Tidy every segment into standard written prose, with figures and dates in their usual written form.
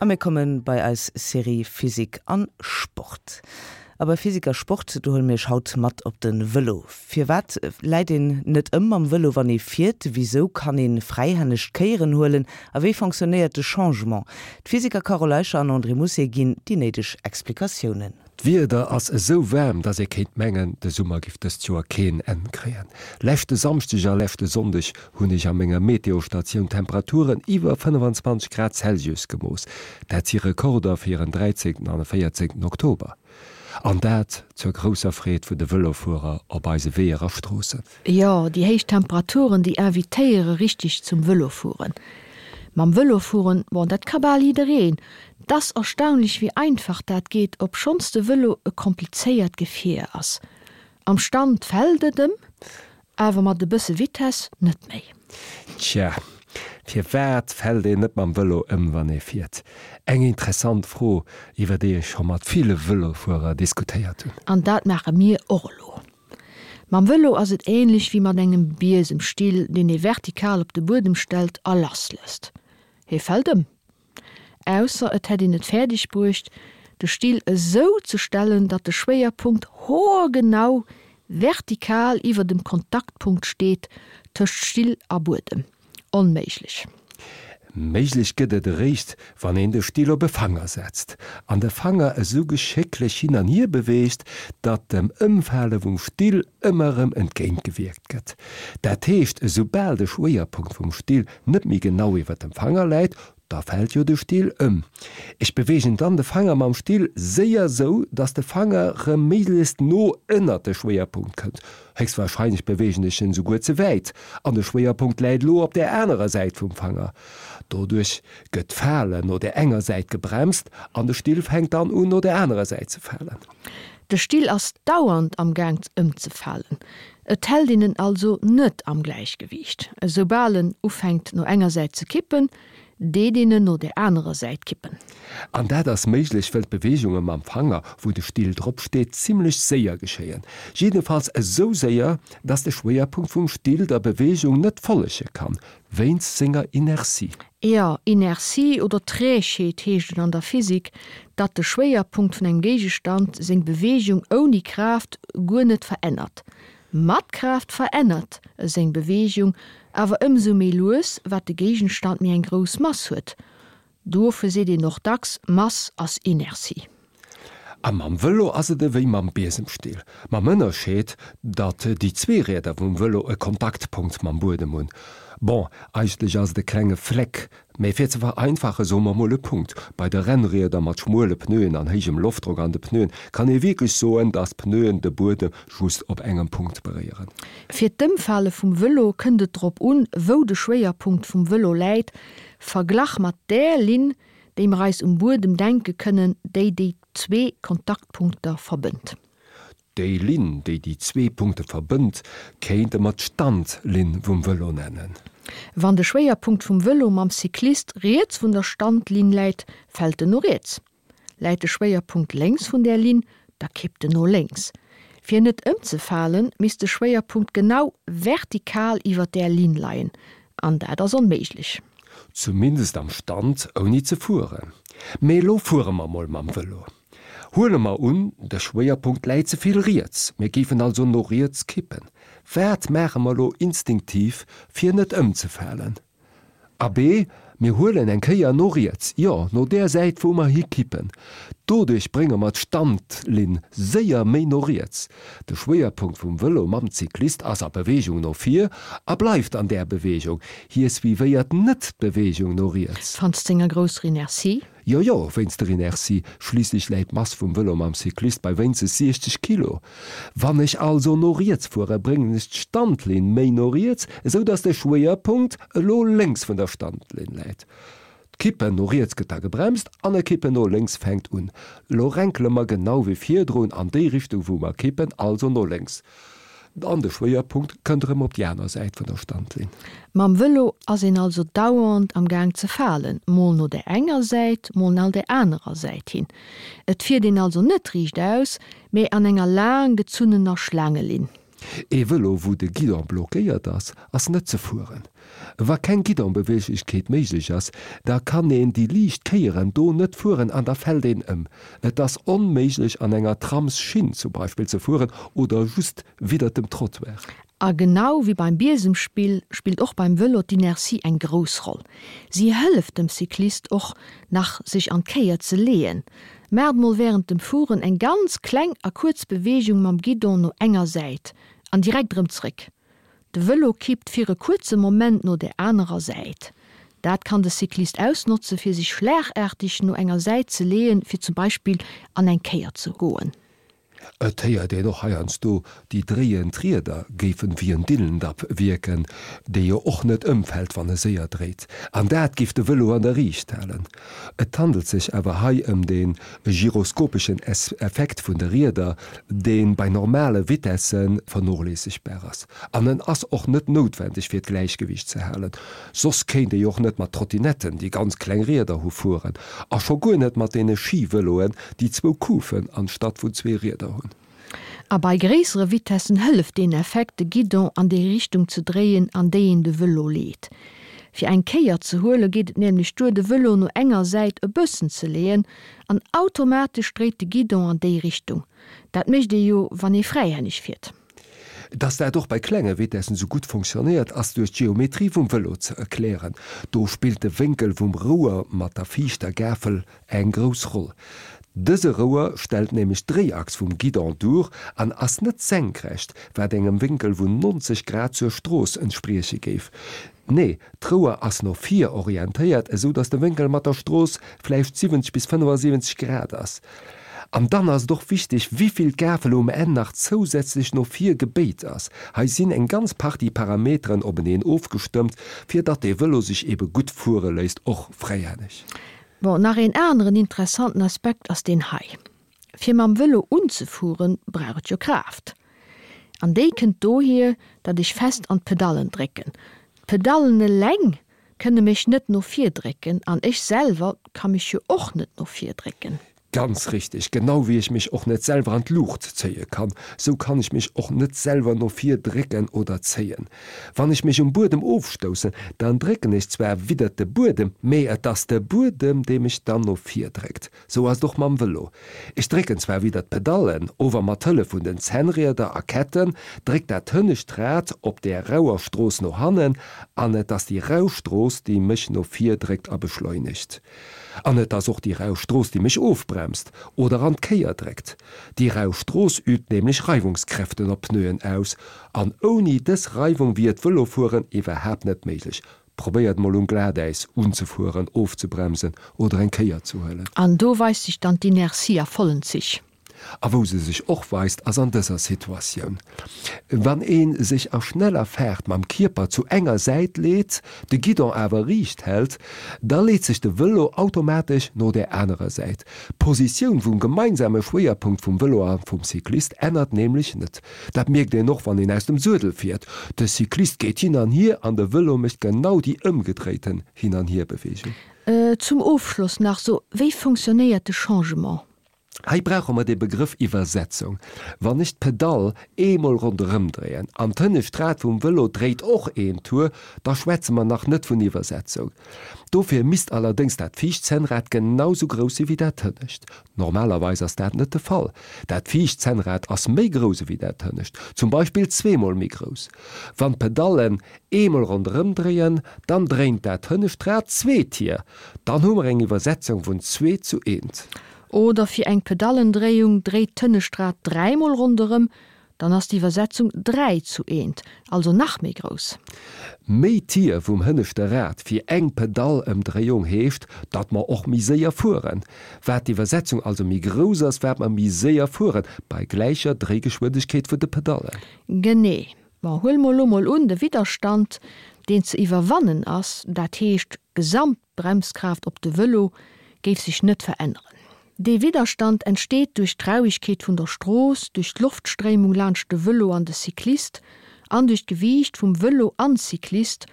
A mir komme bei eis Serie Physik an Sport. A bei Physik a Sport, do huele mir iech haut mat op de Vëlo. Firwat läit een net ëm mam Vëlo wann ee fiert? Wisou kann ee fräihänneg d'Kéieren huelen? A wéi fonctionnéiert de Changement? D'Physiker Carole Eicher an André Mousset ginn déi néideg Explikatiounen. D'Wieder ass esou waarm, dass ee kéint mengen, de Summer giff dëst Joer keen Enn kréien. Leschte Samschdeg a leschte Sonndeg hunn ech a menger Meteostatioun Temperaturen iwwer 25 Grad Celsius gemooss. Dat si Rekorder fir en 13. an e 14. Oktober. An dat zur grousser Freed vun de Vëlofuerer op eise Weeër a Stroossen. Jo, déi héich Temperaturen, déi invitéiere richteg zum Vëlofueren. Mam Vëlo fueren, bon, dat ka bal jiddereen. 't ass erstaunlech wéi einfach dat geet, obschonns de Vëlo e komplizéiert Gefier ass. Am Stand fält et ëm, awer mat e bësse Vitess net méi. Tja, firwat fält een net mam Vëlo ëm, wann ee fiert? Eng interessant Fro, iwwer déi ech scho mat ville Vëlofuerer diskutéiert hunn. An dat maache mir och elo. Mam Vëlo ass et änlech wéi mat engem Biesemstill, deen ee vertikal op de Buedem stellt a lasslësst. Hie fält ëm. Ausser et hätt een et fäerdeg bruecht, de Still esou ze stellen, datt de Schwéierpunkt hoergenau vertikal iwwer dem Kontaktpunkt steet tëscht Still a Buedem. Onméiglech. Méiglech gëtt et eréischt, wann een de Still op e Fanger setzt, an de Fanger esou geschécklech hin an hier beweegt, datt dem Ëmfale vum Still ëmmer erëm entgéintgewierkt gëtt. Dat heescht, esoubal de Schwéierpunkt vum Still net méi genau iwwer dem Fanger läit, da fält jo de Still ëm. Ech beweegen dann de Fanger mam Still séier sou, dass de Fanger rëm méiglechst no ënnert de Schwéierpunkt kënnt. Héchstwahrscheinlech beweegen ech en souguer ze wäit an de Schwéierpunkt läit elo op där anerer Säit vum Fanger. Doduerch gëtt d'Falen no där enger Säit gebremst an de Still fänkt dann un no där anerer Säit ze falen. De Still ass dauernd am Gaang ëmzefalen. Et hält een en also net am Gläichgewiicht. Esoubal en ufänkt no enger Säit ze kippen, deet een en no der anerer Säit kippen. An dat ass méiglech, wëll d'Beweegunge mam Fanger, wou de Still drop steet, zimmlech séier geschéien. Jiddefalls esou séier, dass de Schwéierpunkt vum Still der Beweegung net follege kann, wéinst senger Inertie. Jo, Inertie oder Trägheet heescht et an der Physik, datt de Schwéierpunkt vun engem Géigestand seng Beweegung ouni Kraaft guer net verännert. Mat Kraaft verännert e seng Beweegung awer ëmsou méi lues, wat de Géigenstand méi eng grouss Mass huet. Dofir seet een och dacks, Mass ass Inertie. A mam Vëlo ass et ewéi mam Biesemstill, mam Ënnerscheed, datt déi zwee Rieder vum Vëlo e Kontaktpunkt mam Buedem hunn. Bon, eigentlech ass et e klenge Fleck, mä fir ze vereinfache soe mer mol e Punkt. Bei de Rennrieder mat schmuele Pneuen an héijem Loftdrock an de Pneuen kann ee wierklech soen, datt d'Pneuen de Buedem just op engem Punkt beréieren. Fir d'Ëmfale vum Vëlo kënnt et drop un, wou de Schwéierpunkt vum Vëlo läit, verglach mat där Linn, déi mer eis um Buedem denke kënnen, déi déi zwee Kontaktpunkter verbënnt. Déi Linn, déi déi zwee Punkte verbënnt, kéinte mer d'Standlinn vum Vëlo nennen. Wann de Schwéierpunkt vum Vëlo mam Cyclist riets vun der Standlinn läit, fält en no riets. Läit de Schwéierpunkt lénks vun där Linn, da kippt en no lénks. Fir net ëmzefalen, misst de Schwéierpunkt genau vertikal iwwer där Linn leien, an dat ass onméiglech. Zumindest am Stand, ouni ze fueren. Mee elo fuere mer mol mam Vëlo. Huele mer un, de Schwéierpunkt läit ze vill riets, mir géifen also no riets kippen. Wat maache mer elo instinktiv, fir net ëmzefalen? Abee, mir huelen eng Kéier no riets, jo, no där Säit, wou mer hikippen. Doduerch brénge mer d'Standlinn séier méi no riets. De Schwéierpunkt vum Vëlo mam Cyclist ass a Beweegung no vir a bleift an där Beweegung. Hie suivéiert net d'Beweegung no riets. Fanns senger grousser Inertie? Jo, jo, wéinst der Inertie, schliisslech läit d'Mass vum Vëlo mam Cyclist bei wéinstens 60 Kilo. Wann ech also no riets fuere, bréngen ech d'Standlinn méi no riets, esou dass de Schwéierpunkt elo lénks vun der Standlinn läit. D'Kippen no riets gëtt da gebremst an e Kippen no lénks fänkt un. Elo renkele mer genau wéi virdrun an déi Richtung wou mer kippen, also no lénks. An de Schwéierpunkt kënnt erëm op déi aner Säit vun der Standlinn. Mam Vëlo ass een also dauernd am Gaang ze falen, mol no där enger Säit, mol nal där anerer Säit hin. Et fiert een also net riichtaus, mee an enger laang gezunnener Schlaangelinn. Ee Vëlo wou de Guidon blockéiert ass, ass net ze fueren. Wa keng Guidonbeweeglechkeet méiglech ass, da kann een déi liicht Kéieren do net fueren an da fält een ëm. Et ass onméiglech an enger Tramsschinn zum Beispill ze fueren oder just widdert dem Trottoir. A genau wéi beim Biesemspill spillt och beim Vëlo d'Inertie eng grouss Roll. Si hëlleft dem Cyclist och nach sech an d'Kéier ze leeën. Maacht mol wärend dem Fueren eng ganz kleng a kuerz Beweegung mam Guidon no enger Säit an direkt erëm zréck. De Vëlo kippt fir e kuerze Moment no der anerer Säit. Dat kann de Cyclist ausnotze fir sech schlagaarteg no enger Säit ze leeën, fir zum Beispill an eng Kéier ze goen. Et héiert een och heiansdo, déi dréiend Rieder géifen wéi en Dillendapp wierken, dee jo och net ëmfält wann e séier dréit. An dat géif de Vëlo an der Riicht halen. Et handelt sech awer hei ëm de gyroskopeschen Effekt vun de Rieder, dee bei normale Vitesse vernoléissegbar ass. An en ass och net noutwendeg fir d'Gläichgewiicht ze halen. Soss kéint ee jo och net mat Trottinetten, déi ganz kleng Rieder hu, fueren. A scho guer net mat deene Skivëloen, déi zwou Kufen anstatt vun zwee Rieder hunn. A bei gréissere Vitessen hëlleft deen Effekt, de Guidon an déi Richtung ze dréien, an déi een de Vëlo leet. Fir eng Kéier ze huele geet et nämlech duer, de Vëlo no enger Säit e bëssen ze leeën, an automatesch dréit de Guidon an déi Richtung. Dat mécht ee jo, wann ee fräihänneg fiert. Dass dat och bei klenge Vitessen sou gutt fonctionnéiert, ass duerch d'Geometrie vum Vëlo ze erklären. Do spillt de Wénkel vum Rouer mat der viischter Gafel eng grouss Roll. Dëse Rouer stellt nämlech d'Dréiachs vum Guidon duer an ass net senkrecht, wat engem Wénkel vun 90 Grad zur Strooss entsprieche géif. Nee, d'Rouer ass no vir orientéiert, esou datt de Wénkel mat der Strooss vläicht 70 bis 75 Grad ass. An dann ass et och wichteg, wivill d'Gafel um Enn nach zousätzlech no vir gebéit ass. Hei sinn eng ganz Partie Parameteren openeen ofgestëmmt, fir datt de Vëlo sech ebe gutt fuere léisst, och fräihänneg. Bon, nach een aneren interessanten Aspekt ass deen hei. Fir mam Vëlo unzefueren, brauch et jo Kraaft. An déi kënnt dohier, datt ech fest an d'Pedallen drécken. D'Pedallen eleng kënne mech net no vir drécken an ech selwer ka mech jo och net no vir drécken. Ganz richteg, genau wéi ech mech och net selwer an d'Luucht zéie kann, sou kann ech mech och net selwer no vir drécken oder zéien. Wann ech mech um Buedem ofstoussen, dann drécken ech zwar widdert de Buedem, mee et ass de Buedem, dee mech dann no vir dréckt. Sou ass et och mam Vëlo. Ech drécken zwar widdert d'Pedallen, ower mat Hëllef vun den Zännrieder a Ketten dréckt dat hënnescht Rad op där rauer Strooss no hannen an et ass déi rau Strooss, déi mech no vir dréckt a beschleunegt. An et ass och déi rau Strooss, déi mech ofbremst oder an d'Kéier dréckt. Déi rau Strooss übt nämlech Reiwungskräften op d'Pneuen aus. An ouni dës Reiwung wier d'Vëlofueren iwwerhaapt net méiglech. Probéiert mol um Glatäis unzefueren, ofzebremsen oder eng Kéier ze huelen. An do weist sech dann d'Inertie a vollen Zich. A wou se sech och weist, ass an dëser Situatioun, Wann ee sech a schneller Faart mam Kierper zu enger Säit leet, de Guidon awer riicht hält, da leet sech de Vëlo automatesch no där anerer Säit. D'Positioun vum gemeinsame Schwéierpunkt vum Vëlo a vum Cyclist ännert nämlech net. Dat mierkt een och, wann een aus dem Suedel fiert, De Cyclist geet hin an hier an de Vëlo mécht genau déi ëmgedréiten Hin-an-Hier-Beweegung. Zum Ofschloss nach, so wéi fonctionnéiert de Changement? Hei brauche mer de Begrëff Iwwersetzung. Wann ech d'Pedall eemol ronderëm dréien an d'hënnescht Rad vum Vëlo dréit och een Tour, da schwätze mer nach net vun Iwwersetzung. Dofir misst allerdéngs dat viischt Zännrad genau sou grouss si wéi dat hënnescht. Normalerweis ass dat net de Fall. Dat viischt Zännrad ass méi grouss ewéi dat hënnescht, zum Beispill zweemol méi grouss. Wann d'Pedallen eemol ronderëm dréien, dann dréint dat hënnescht Rad zwee Tier. Dann hu mer eng Iwwersetzung vun zwee zu eent. Oder fir eng Pedallendréiung dréit d'Hënnescht-Rad dräimol ronderëm, dann ass d'Iwwersetzung 3 zu eent, also nach méi grouss. Méi Tier vum hënneschte Rad fir eng Pedallëmdréiung heescht, datt mer och méi séier fueren. Wat d'Iwwersetzung also méi grouss ass, wat mer méi séier fueren, bei gläicher Dréigeschwindegkeet vun de Pedallen. Genee. Bon, huele mer elo mol un, de Widderstand, deen ze iwwerwannen ass, dat heescht d'Gesamt. D'Bremskraaft op de Vëlo géif sech net veränneren. Dee Widderstand entsteet duerch d'Rauegkeet vun der Strooss, duerch d'Loftstréimung laanscht de Vëlo an de Cyclist an duerch d'Gewiicht vum Vëlo an Cyclist,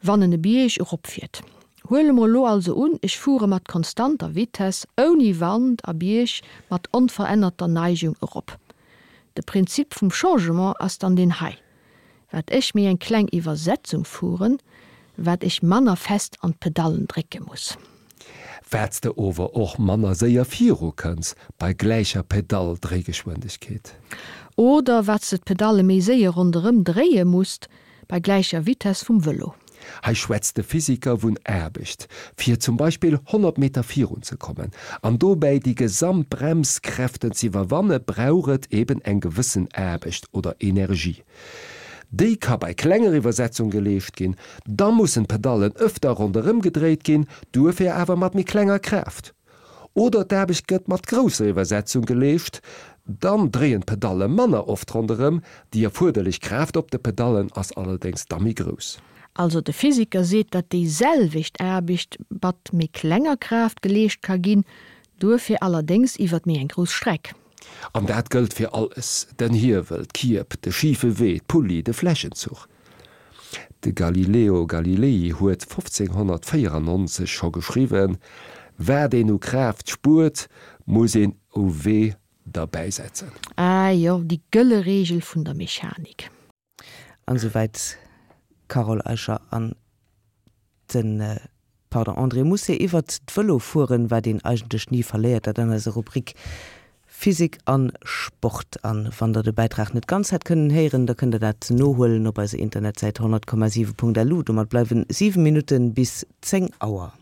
wann en e Bierg eropfiert. Huele mer elo also un, ech fuere mat konstanter Vitess, ouni Wand a Bierg mat onverännerter Neigung erop. De Prinzip vum Changement ass dann deen hei, Wat ech méi eng kleng Iwwersetzung fueren, wat ech manner fest an d'Pedallen drécke muss. Wat s de ower och manner séier viru kënns bei gläicher Pedalldréigeschwindegkeet. Oder wat s de d'Pedalle méi séier ronderëm dréie musst bei gläicher Vitess vum Vëlo. Hei schwätzt de Physiker vun Aarbecht, fir zum Beispill 100 Meter virun ze kommen an dobäi déi gesamt Bremskräften z'iwwerwanne brauch et eben eng gewëssen Aarbecht oder Energie. Déi ka bei klenger Iwwersetzung geleescht ginn, da mussen d'Pedallen ëfter ronderëm gedréit ginn, duerfir awer mat méi klenger Kraaft. Oder d'Aarbecht gëtt mat grousser Iwwersetzung geleescht, dann dréien d'Pedalle manner oft ronderëm, déi erfuerderlech Kraaft op de Pedallen ass allerdéngs da méi grouss. Also de Physiker seet, datt déi selwecht Aarbecht mat méi klenger Kraaft geleescht ka ginn, duerfir allerdéngs iwwert méi eng grouss Streck. An dat gëllt fir alles, den Hiewel, d'Kierb, de schife Wee, d'Pulli, de Flächenzuch. De Galileo Galilei huet 1594 scho geschriwwen, Wat een u Kraaft spuert, muss een u Wee derbäisetzen. Ah jo, déi gëlle Reegel vun der Mechanik. An esouwäit d'Carole Eicher an den, pardon, André Mousset iwwert d'Vëlofueren, wat een eigentlech ni verléiert, dat an eiser Rubrik Physik an Sport. An wann der de Bäitrag net ganz hätt kënnen héieren, da kënnt der dat nohuelen op eiser Internetsäit 100,7.lu. Domat bleiwen 7 Minutten bis 10 Auer.